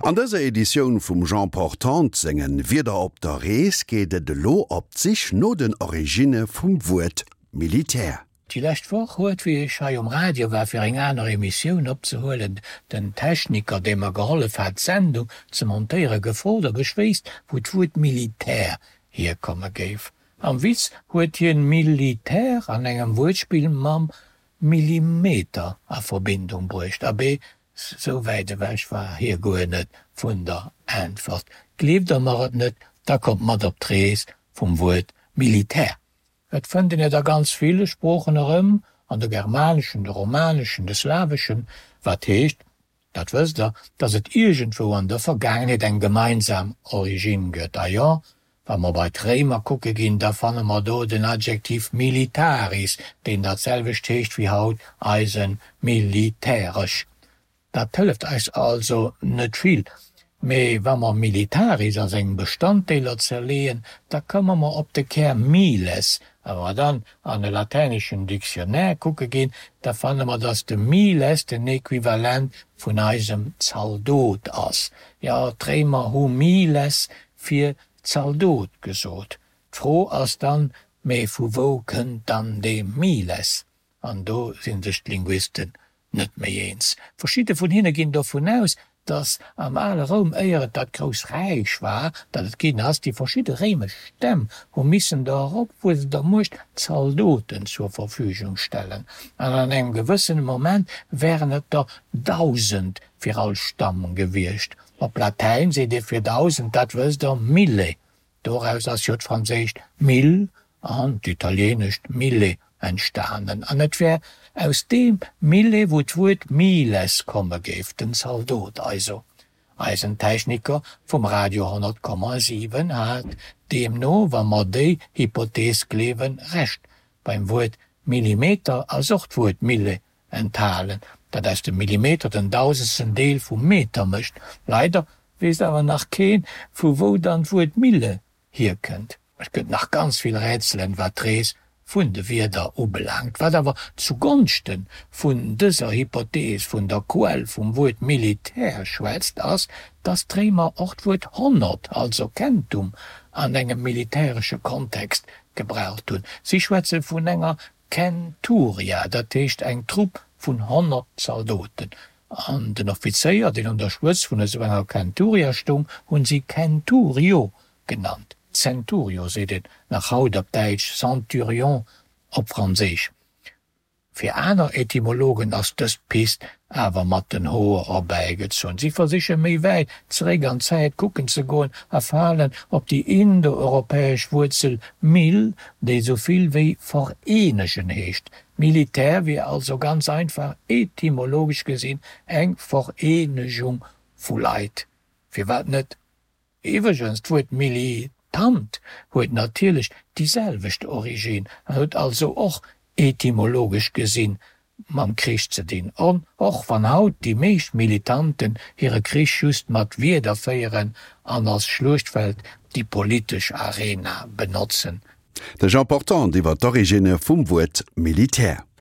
An dëser Editioun vum Jean Portante sengen Wieder op der Rees geet et elo op d'Sich no den Originne vum Wuert Militär. Déi lescht Woch huet, wéi ech hei um Radio war fir eng aner Emissioun opzehuelen, den Techniker, dee mer gehollef hat d'Sendung ze montéieren, gefrot, ob ech wéisst, wou d'Wuert Militär hierkomme géif. Am Witz huet hien Militär an engem Wuertspill mam Millimeter a Verbindung bruecht. Abee, sou wäit ewech war hie guer net vun der Äntwert. Gleeft der mer et net, da kommt mat op d'Rees vum Wuert Militär. Et fënnt een et a ganz ville Sproochen erëm, an de germaneschen, de romaneschen, de slaweschen, wat heescht, dat wësst der, datt et iergendwou an der Vergaangenheet eng gemeinsam Origine gëtt. A jo, wa mer bei d'Réimer kucke ginn, da fanne mer do den Adjektiv militaris, deen dat selwecht heescht wéi haut eise militäresch. Dat hëlleft eis also net vill. Mee wa mer militaris a seng Bestanddeeler zerleeën, da komme mer op de Kär miles. A wa mer dann an e latäneschen Dictionnaire kucke ginn, da fanne mer, datt de miles den Equivalent vun eisem Zaldot ass. Jo, d'Réimer hu miles fir Zaldot gesot. D'Fro ass dann, mee vu wou kënnt dann dee miles? An do si sech d'Linguisten net méi eens. Verschidde vun hinne ginn dovun aus, datt am ale Roum, éier et dat grouss Räich war, dat et ginn ass, déi verschidde réimesch Stämm hu missen der eropwuessender Muecht Zaldoten zur Verfügung stellen. An an engem gewëssene Moment wären et der 1.000 fir all Stamm gewiescht. Op Latäin seet ee fir 1.000, dat wësst der, mille. Doraus ass jo d'franséischt mille an d'italienescht mille entstanen. An et wär aus deem mille wou d'Wuert miles komme géif, den Zaldot also. Eisen Techniker vum Radio 100,7 hat deemno, wa mer déi Hypothees gleewen, Recht. Beim Wuert Millimeter ass och d'Wuert mille enthalen, dat aus dem Millimeter den dausendsten Deel vum Meter mécht. Leider weess awer nach keen, vu wou dann d'Wuert Mille hierkënnt. Et gëtt nach ganz vill Rätselen, wat d'Rees vun de Wierder ubelaangt. Wat awer zu Gonschte vun dëser Hypothees vun der Quell vum Wuert Militär schwätzt, ass, dass d'Réimer och d'Wuert 100, also Centum, an engem militäresche Kontext gebraucht hunn. Si schwätze vun enger Centuria, dat heescht eng Trupp vun 100 Zaldoten. An den Offizéier, deen un der Spëtz vun esou enger Centuria stoung, hunn si Centurio genannt. Centurio seet een nach haut op Däitsch, Centurion op Franséisch. Fir aner Etymologen ass dës Pist awer mat den Hoer erbäigezunn. Si versiche méi wäit zeréck an d'Zäit kucken ze goen a falen op déi indoeuropäesch Wuerzel mil, déi esou vill wéi vereenegen heescht. Militär wier also ganz einfach etymologesch gesinn eng Vereenegung vu Leit. Firwat net? Iwwregens, d'Wuert Militant huet natierlech déi selwecht Origine an huet also och etymologesch gesinn mam Krich ze dinn, och wann haut déi meescht Militanten hire Krich just mat Wierder féieren an als Schluechtfeld déi politesch Arena benotzen. De Jean Portante iwwer d'Originne vum Wuert Militär.